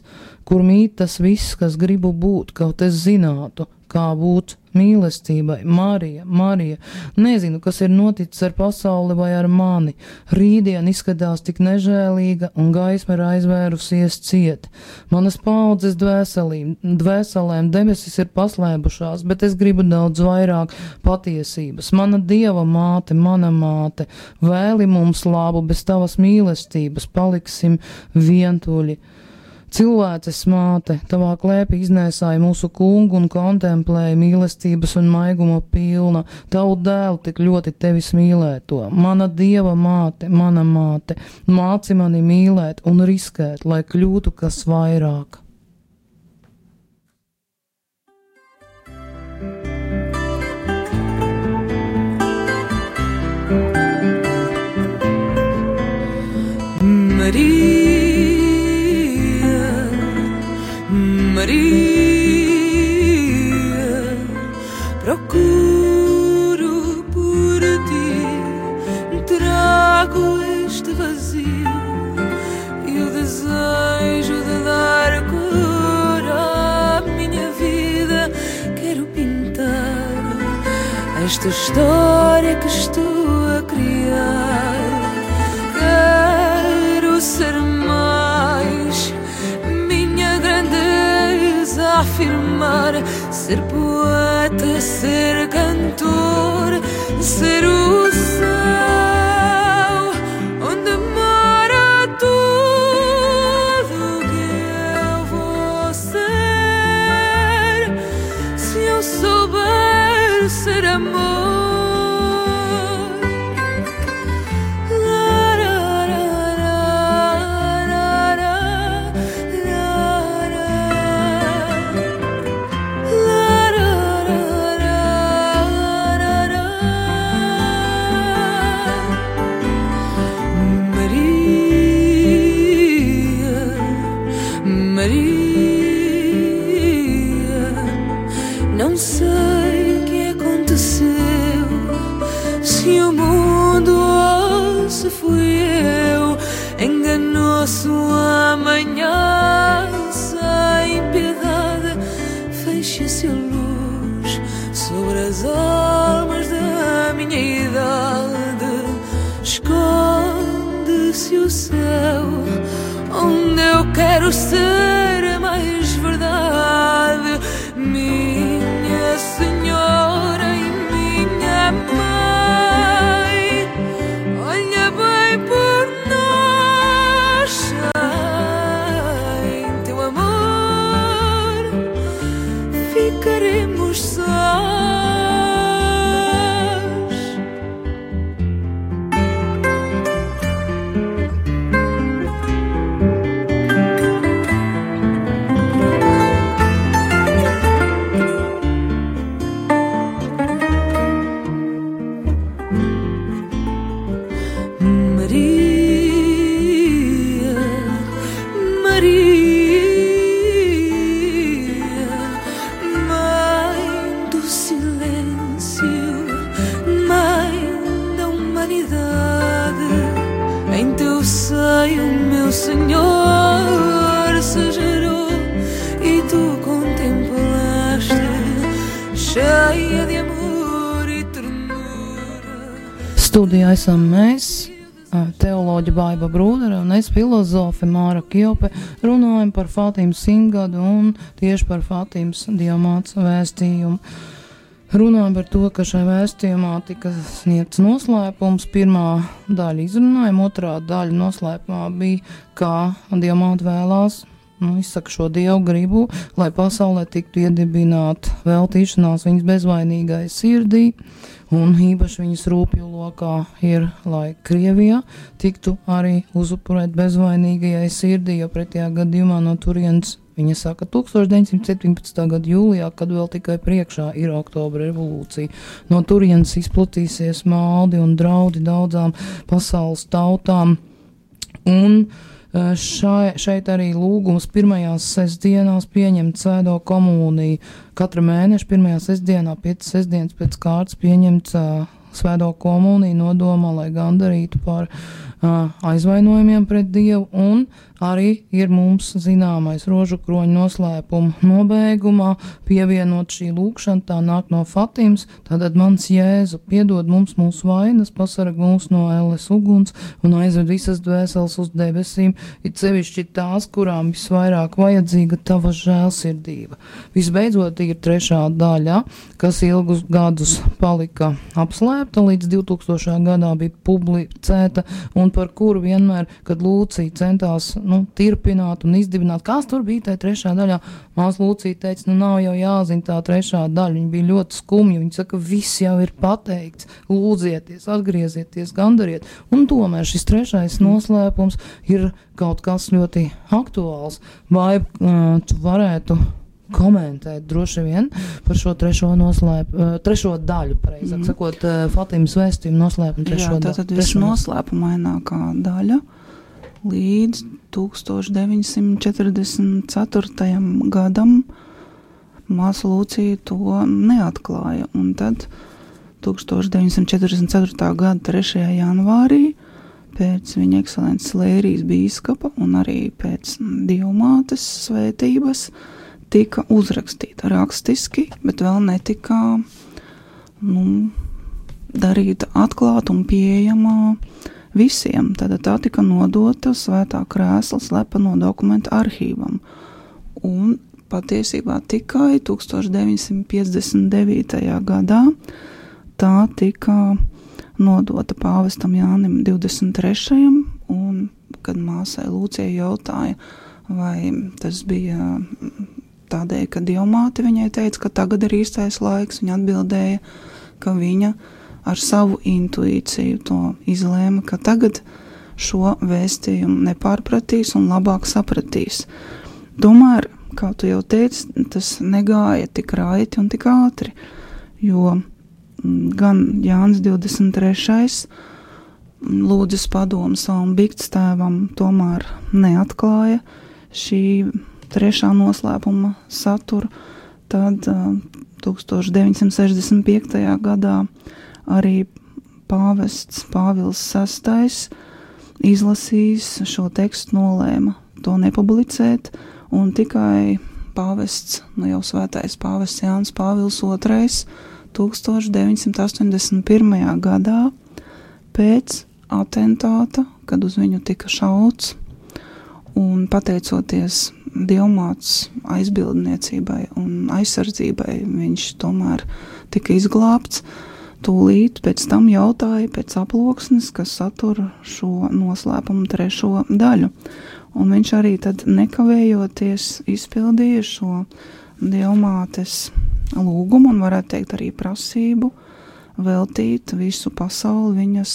Speaker 3: kur mīt tas viss, kas gribu būt, kaut es zinātu, kā būt mīlestībai. Marija, Marija, nezinu, kas ir noticis ar pasauli vai ar mani. Rītdien izskatās tik nežēlīga un gaisma ir aizvērusies ciet. Manas paudzes dvēselēm debesis ir paslēbušās, bet es gribu daudz vairāk patiesības. Mana Dieva māte, mana māte, vēli mums labu, bez tavas mīlestības paliksim vientuļi. Cilvēces māte, tavā klēpī iznēsāja mūsu kungu un kontemplēja mīlestības un maiguma pilna, tavu dēlu tik ļoti tevis mīlēto. Mana Dieva māte, mana māte, māci mani mīlēt un riskēt, lai kļūtu kas vairāk.
Speaker 5: Maria, procuro por ti, trago este vazio e o desejo de dar cor à minha vida. Quero pintar esta história que estou a criar. Quero ser mais, minha grandeza afirmar, ser poeta, ser cantor, ser o céu onde mora tudo que eu vou ser, se eu souber ser amor. Não sei o que aconteceu, se o mundo ou se fui eu. Enganou-se o amanhã sem piedade, fecha-se a luz sobre as almas da minha idade. Esconde-se o céu onde eu quero ser mais verdade. Minha Senhora e minha Mãe, olha bem por nós, sem teu amor ficaremos sós. Senhor se gerou e tu contemplaste, cheia de amor e ternura.
Speaker 3: Studijā esam mēs, teoloģa Baiba Brūdere un es, filozofe Māra Kjope, runājam par Fātimas simtgadu un tieši par Fātimas Dievmātes vēstījumu. Runājam par to, ka šai vēstījumā tika sniegts noslēpums. Pirmā daļa izrunājuma, otrā daļa noslēpumā bija, kā Dievmāte vēlās, izsaka šo Dievu gribu, lai pasaulē tiktu iedibināta veltīšanās viņas bezvainīgai sirdī, un īpaši viņas rūpju lokā ir, lai Krievijā tiktu arī uzupurēt bezvainīgajai sirdī, jo pretējā gadījumā no turienes, viņa saka, 1917. gada jūlijā, kad vēl tikai priekšā ir Oktobra revolūcija. No turienes izplatīsies maldi un draudi daudzām pasaules tautām. Un šeit arī lūgums pirmajās sestdienās pieņemt svēto komuniju. Katra mēneša pirmajā sestdienā, 5 sestdienas pēc kārtas pieņemt svēto komuniju nodomā, lai gandarītu par aizvainojumiem pret Dievu, un arī ir mums zināmais rožu kroņa noslēpuma nobeigumā pievienot šī lūkšana, tā nāk no Fatimas, tātad mans Jēzu, piedod mums mūsu vainas, pasarg mūs no elles uguns un aizved visas dvēseles uz debesīm, it sevišķi tās, kurām visvairāk vajadzīga tava žēlsirdība. Visbeidzot ir 3. daļa, kas ilgus gadus palika apslēpta, līdz 2000. gadā bija publicēta, un par kuru vienmēr, kad Lūcija centās tirpināt un izdibināt, kas tur bija tajā 3. daļā, māsa Lūcija teica, nav jau jāzina tā 3. daļa, viņa bija ļoti skumja, viņa saka, viss jau ir pateikts, lūdzieties, atgriezieties, gandariet, un tomēr šis 3. noslēpums ir kaut kas ļoti aktuāls, vai tu varētu komentēt droši vien par šo 3. daļu, pareizāk sakot, Fatimas vēstījumu noslēpumu 3. daļu.
Speaker 4: Jā, tātad visnoslēpumainākā daļa līdz 1944. gadam māsa Lūcija to neatklāja, un tad 1944. gada 3. janvārī pēc viņa ekscelences Lērijas bīskapa un arī pēc Dievmātes svētības tika uzrakstīta rakstiski, bet vēl netika darīta atklāta un pieejama visiem. Tad tā tika nodota Svētā krēsla slepeno dokumentu arhīvam. Un patiesībā tikai 1959. gadā tā tika nodota pāvestam Jānim 23. un, kad māsai Lūcijai jautāja, vai tas bija tādēļ, ka Dievmāte viņai teica, ka tagad ir īstais laiks, viņa atbildēja, ka viņa ar savu intuīciju to izlēma, ka tagad šo vēstījumu nepārpratīs un labāk sapratīs. Tomēr, kā tu jau teici, tas negāja tik raiti un tik ātri, jo gan Jānis 23. lūdzas padomu savam biktstāvam tomēr neatklāja šī 3. noslēpuma saturu, tad 1965. gadā arī pāvests Pāvils VI izlasījis šo tekstu, nolēma to nepublicēt, un tikai pāvests, jau svētais pāvests Jānis Pāvils II 1981. gadā pēc atentāta, kad uz viņu tika šauts, un pateicoties Dievmātes aizbildniecībai un aizsardzībai, viņš tomēr tika izglābts. Tūlīt pēc tam jautāja pēc aploksnes, kas satura šo noslēpumu 3. daļu. Un viņš arī tad nekavējoties izpildīja šo Dievmātes lūgumu un varētu teikt arī prasību veltīt visu pasauli viņas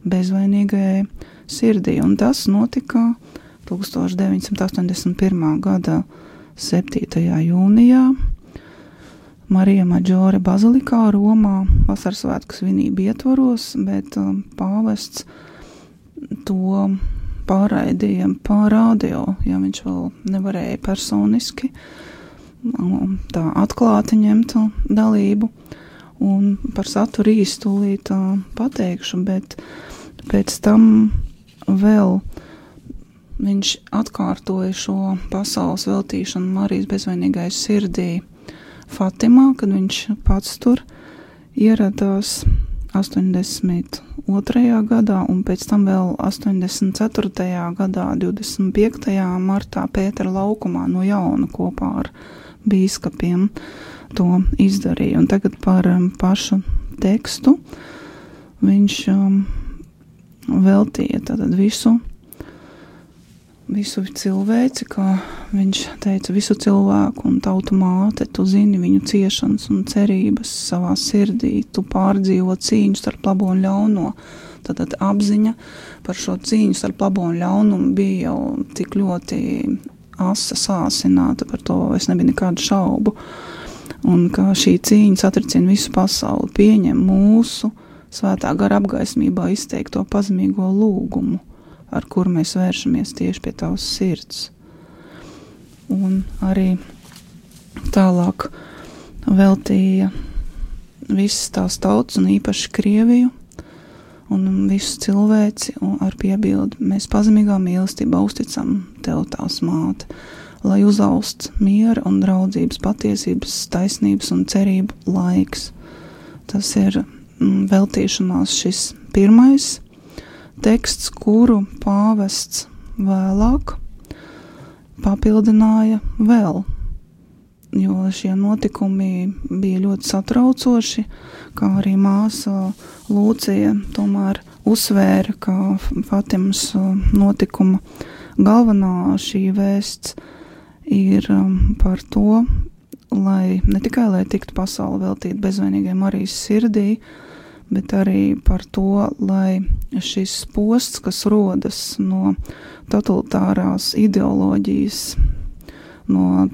Speaker 4: bezvainīgajai sirdī. Un tas notika 1981. gada 7. jūnijā Marija Maģore bazilikā Romā vasaras svētku svinību ietvaros, bet pāvests to pārraidīja pa radio, ja viņš vēl nevarēja personiski tā atklāti ņemt dalību. Un par saturu īstulīt pateikšu, bet pēc tam vēl viņš atkārtoja šo pasaules veltīšanu Marijas bezvainīgai sirdī Fatimā, kad viņš pats tur ieradās 82. gadā un pēc tam vēl 84. gadā 25. martā Pētera laukumā no jauna kopā ar bīskapiem to izdarīja. Un tagad par pašu tekstu viņš veltīja tātad visu cilvēci, kā viņš teica, visu cilvēku un tautu māte, tu zini viņu ciešanas un cerības savā sirdī, tu pārdzīvo cīņu starp labo un ļauno. Tad apziņa par šo cīņu starp labo un ļaunumu bija jau tik ļoti asa sāsināta, par to es nebija nekādu šaubu. Un ka šī cīņa satricina visu pasauli, pieņem mūsu svētā gara apgaismībā izteikto pazemīgo lūgumu, ar kuru mēs vēršamies tieši pie tavas sirds. Un arī tālāk veltīja visas tās tautas un īpaši Krieviju un visu cilvēci un ar piebildi. Mēs pazemīgā mīlestībā uzticam tev, tās māte, lai uzaust miera un draudzības, patiesības, taisnības un cerību laiks. Tas ir veltīšanās šis pirmais teksts, kuru pāvests vēlāk papildināja vēl, jo šie notikumi bija ļoti satraucoši, kā arī māsa Lūcija tomēr uzsvēra, ka Fatimas notikuma galvenā šī vēsts ir par to, lai ne tikai lai tiktu pasauli veltīt bezvainīgai Marijas sirdī, bet arī par to, lai šis posts, kas rodas no totalitārās ideoloģijas, no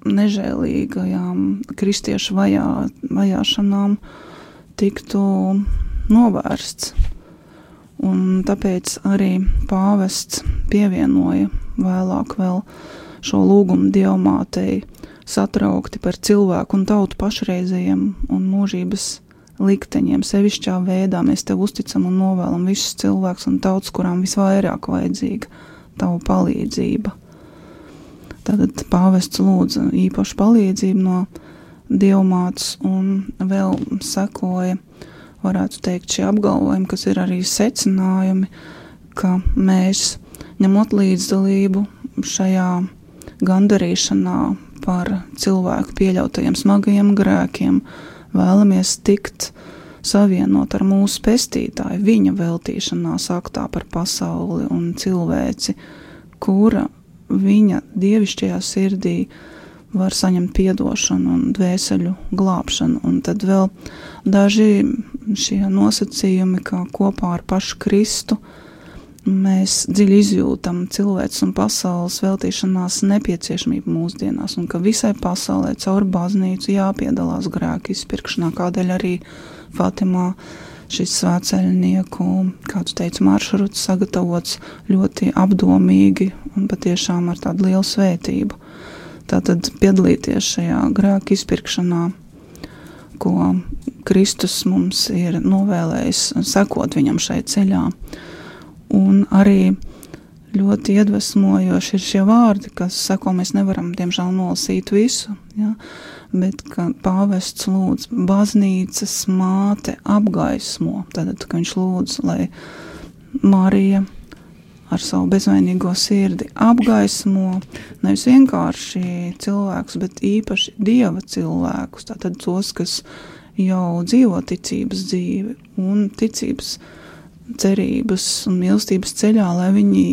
Speaker 4: nežēlīgajām kristiešu vajāšanām, tiktu novērsts. Un tāpēc arī pāvests pievienoja vēlāk vēl šo lūgumu Dievmātei satraukti par cilvēku un tautu pašreizējiem un mūžības likteņiem. Sevišķā veidā mēs tev uzticam un novēlam visus cilvēkus un tautas, kurām visvairāk vajadzīga tavu palīdzība. Tātad pāvests lūdza īpašu palīdzību no Dievmātes un vēl sekoja, varētu teikt, šie apgalvojumi, kas ir arī secinājumi, ka mēs, ņemot līdzdalību šajā gandarīšanā par cilvēku pieļautajiem smagajiem grēkiem, vēlamies tikt savienot ar mūsu pestītāju, viņa veltīšanās aktā par pasauli un cilvēci, kura viņa dievišķajā sirdī var saņemt piedošanu un dvēseļu glābšanu. Un tad vēl daži šie nosacījumi, kā kopā ar pašu Kristu, mēs dziļi izjūtam cilvēks un pasaules veltīšanās nepieciešamību mūsdienās, un ka visai pasaulē caur baznīcu jāpiedalās grēku izpirkšanā, kādēļ arī Fatimā šis svētceļnieku, kāds teica, maršruts sagatavots ļoti apdomīgi un patiešām ar tādu lielu svētību. Tātad piedalīties šajā grēku izpirkšanā, ko Kristus mums ir novēlējis, sekot viņam šai ceļā. Un arī ļoti iedvesmojoši ir šie vārdi, kas sako, mēs nevaram, diemžēl, nolasīt visu, ja? Bet ka pāvests lūdz baznīcas māte apgaismo, tātad, ka viņš lūdz, lai Marija ar savu bezvainīgo sirdi apgaismo nevis vienkārši cilvēkus, bet īpaši Dieva cilvēkus, tātad tos, kas jau dzīvo ticības dzīvi un ticības cerības un mīlestības ceļā, lai viņi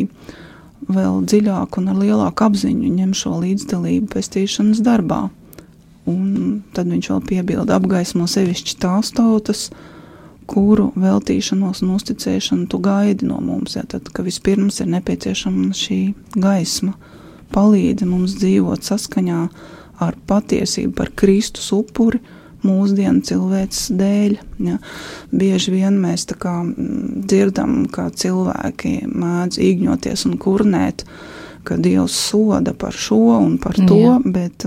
Speaker 4: vēl dziļāk un ar lielāku apziņu ņem šo līdzdalību pestīšanas darbā. Un tad viņš vēl piebilda apgaismo sevišķi tās tautas, kuru veltīšanos un uzticēšanu tu gaidi no mums. Ja, tad, ka vispirms ir nepieciešama šī gaisma, palīdzi mums dzīvot saskaņā ar patiesību par Kristus upuri, mūsdienu cilvēces dēļ. Ja. Bieži vien mēs tā kā dzirdam, kā cilvēki mēdz īgņoties un kurnēt, ka Dievs soda par šo un par to, bet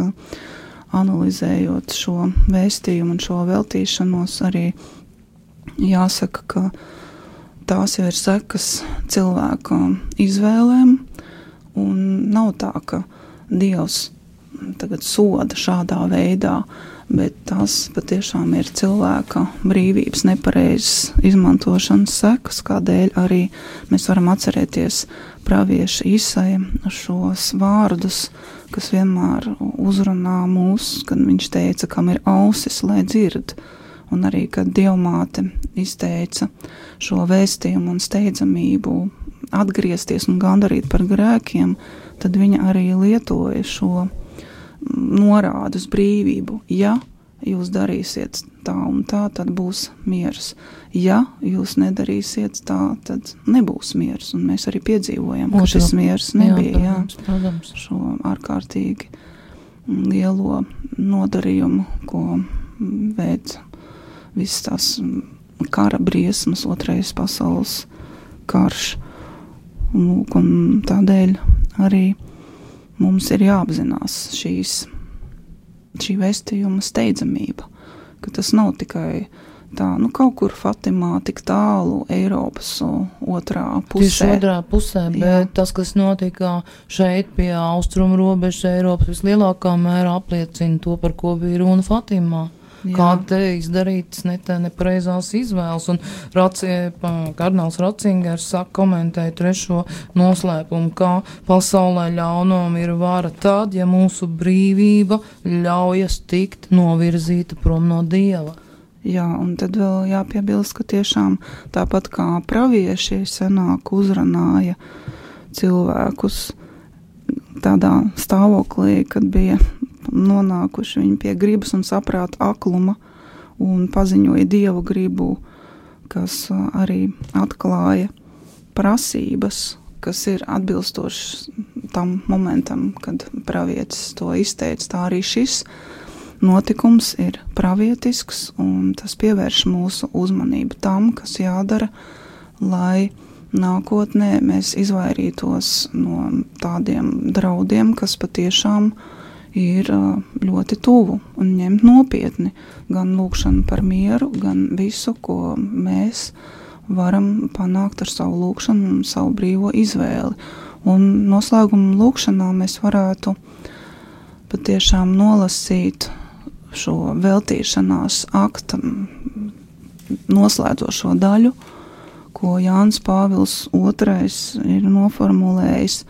Speaker 4: analizējot šo vēstījumu un šo veltīšanos, arī jāsaka, ka tās jau ir sekas cilvēka izvēlēm, un nav tā, ka Dievs tagad soda šādā veidā, bet tās patiešām ir cilvēka brīvības nepareizas izmantošanas sekas, kādēļ arī mēs varam atcerēties pravieša Isaja šos vārdus, kas vienmēr uzrunā mūs, kad viņš teica, kam ir ausis, lai dzird, un arī, kad Dievmāte izteica šo vēstījumu un steidzamību atgriezties un gandarīt par grēkiem, tad viņa arī lietoja šo norādu uz brīvību. Ja jūs darīsiet tā un tā, tad būs miers. Ja jūs nedarīsiet tā, tad nebūs miers. Un mēs arī piedzīvojam, ka šis miers nebija.
Speaker 3: Protams.
Speaker 4: Šo ārkārtīgi lielo nodarījumu, ko veic visas tās kara briesmas, otrais pasaules karš. Un tādēļ arī mums ir jāapzinās šī vēstījuma steidzamība, ka tas nav tikai tā, kaut kur Fatimā, tik tālu Eiropas otrā pusē.
Speaker 3: Tieši otrā pusē, bet tas, kas notika šeit pie austrumu robežas Eiropas, vislielākā mērā apliecina to, par ko bija runa Fatimā. Kā te izdarītas nepareizās izvēles, un kardināls Ratzingers komentēja 3. noslēpumu, kā pasaulē ļaunum ir vara tad, ja mūsu brīvība ļaujas tikt novirzīta prom no Dieva.
Speaker 4: Jā, un tad vēl jāpiebilst, ka tiešām tāpat kā pravieši senāk uzrunāja cilvēkus tādā stāvoklī, kad bija nonākuši viņi pie gribas un saprāta akluma un paziņoja Dievu gribu, kas arī atklāja prasības, kas ir atbilstošas tam momentam, kad pravietis to izteica. Tā arī šis notikums ir pravietisks, un tas pievērš mūsu uzmanību tam, kas jādara, lai nākotnē mēs izvairītos no tādiem draudiem, kas patiešām ir ļoti tuvu, un ņemt nopietni gan lūkšanu par mieru, gan visu, ko mēs varam panākt ar savu lūkšanu un savu brīvo izvēli. Un noslēguma lūkšanā mēs varētu patiešām nolasīt šo veltīšanās akta noslēdzošo daļu, ko Jānis Pāvils II ir noformulējis,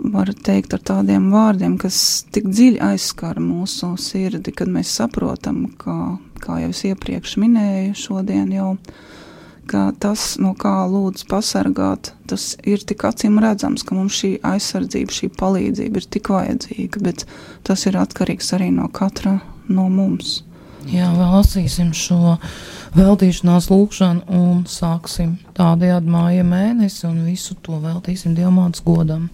Speaker 4: var teikt ar tādiem vārdiem, kas tik dziļi aizskar mūsu sirdi, kad mēs saprotam, kā jau es iepriekš minēju šodien jau, ka tas, no kā lūdz pasargāt, tas ir tik acīm redzams, ka mums šī aizsardzība, šī palīdzība ir tik vajadzīga, bet tas ir atkarīgs arī no katra no mums.
Speaker 3: Jā, vēl lasīsim šo veltīšanās lūkšanu un sāksim tādējādi māja mēnesi un visu to veltīsim Dievmātes godam.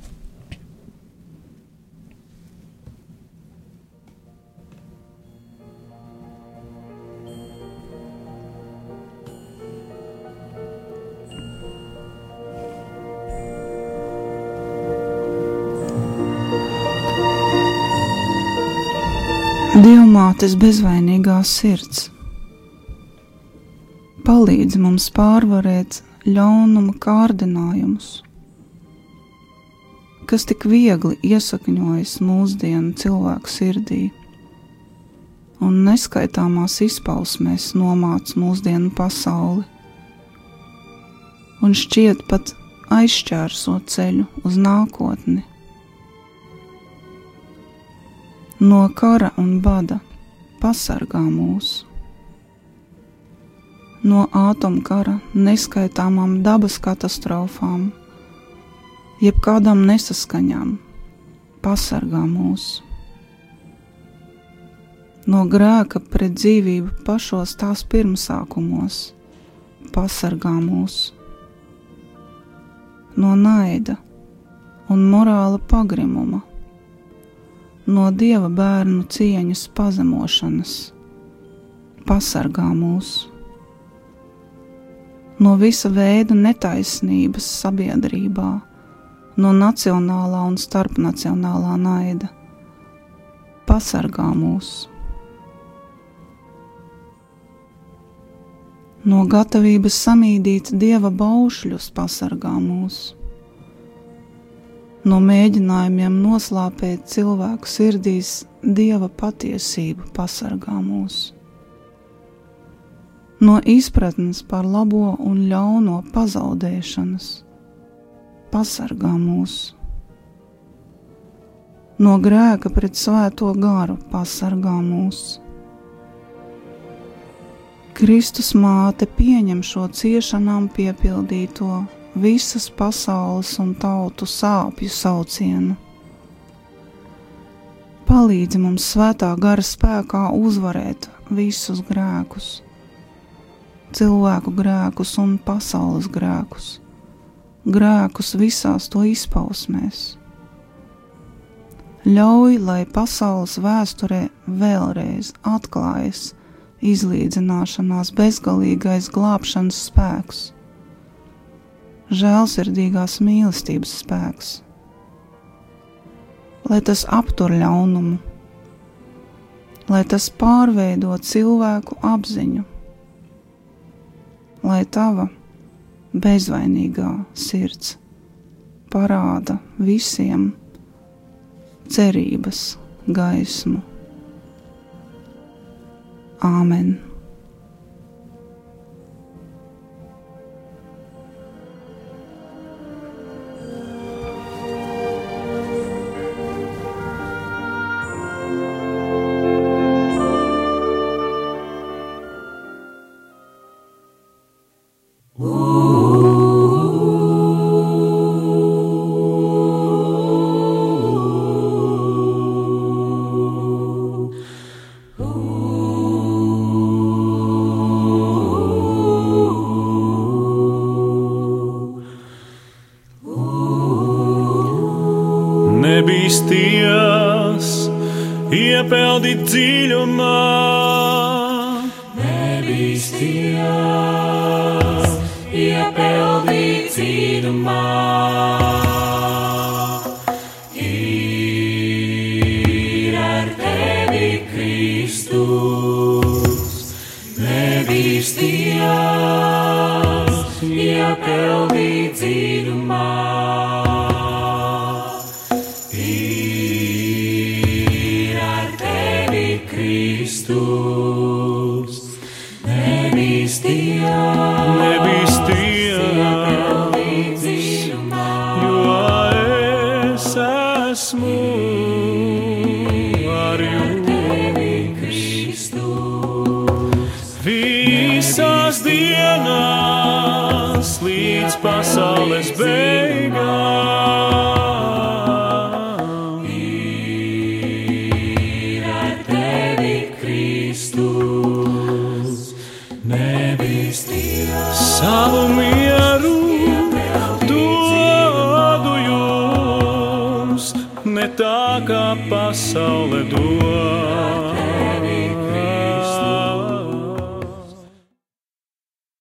Speaker 4: Dievmātes bezvainīgā sirds, palīdzi mums pārvarēt ļaunuma kārdinājumus, kas tik viegli iesakņojas mūsdienu cilvēku sirdī un neskaitāmās izpausmēs nomāc mūsdienu pasauli un šķiet pat aizšķērso ceļu uz nākotni. No kara un bada pasargā mūs, no ātomkara neskaitāmām dabas katastrofām, jebkādām nesaskaņām pasargā mūs, no grēka pret dzīvību pašos tās pirmsākumos pasargā mūs, no naida un morāla pagrimuma, no Dieva bērnu cieņas pazemošanas pasargā mūs, no visa veida netaisnības sabiedrībā, no nacionālā un starpnacionālā naida pasargā mūs, no gatavības samīdīt Dieva baušļus pasargā mūs, no mēģinājumiem noslāpēt cilvēku sirdīs Dieva patiesību pasargā mūs, no izpratnes par labo un ļauno pazaudēšanas pasargā mūs, no grēka pret svēto garu pasargā mūs. Kristus māte pieņem šo ciešanām piepildīto visas pasaules un tautu sāpju saucienu. Palīdzi mums svētā gara spēkā uzvarēt visus grēkus, cilvēku grēkus un pasaules grēkus, grēkus visās to izpausmēs. Ļauj, lai pasaules vēsturē vēlreiz atklājas izlīdzināšanās bezgalīgais glābšanas spēks, žēlsirdīgās mīlestības spēks, lai tas aptur ļaunumu, lai tas pārveido cilvēku apziņu, lai tava bezvainīgā sirds parāda visiem cerības gaismu. Āmen.
Speaker 1: Nebīsties, iepeldi dziļumā.
Speaker 2: Nebīsties, iepeldi dziļumā. Ir ar tevi Kristus. Nebīsties, iepeldi dziļumā. Kristus, nebīsties, jo es esmu ar jums. Visās dienās līdz pasaules beigām. Savu mieru dodu jums, ne tā kā pasaule dod.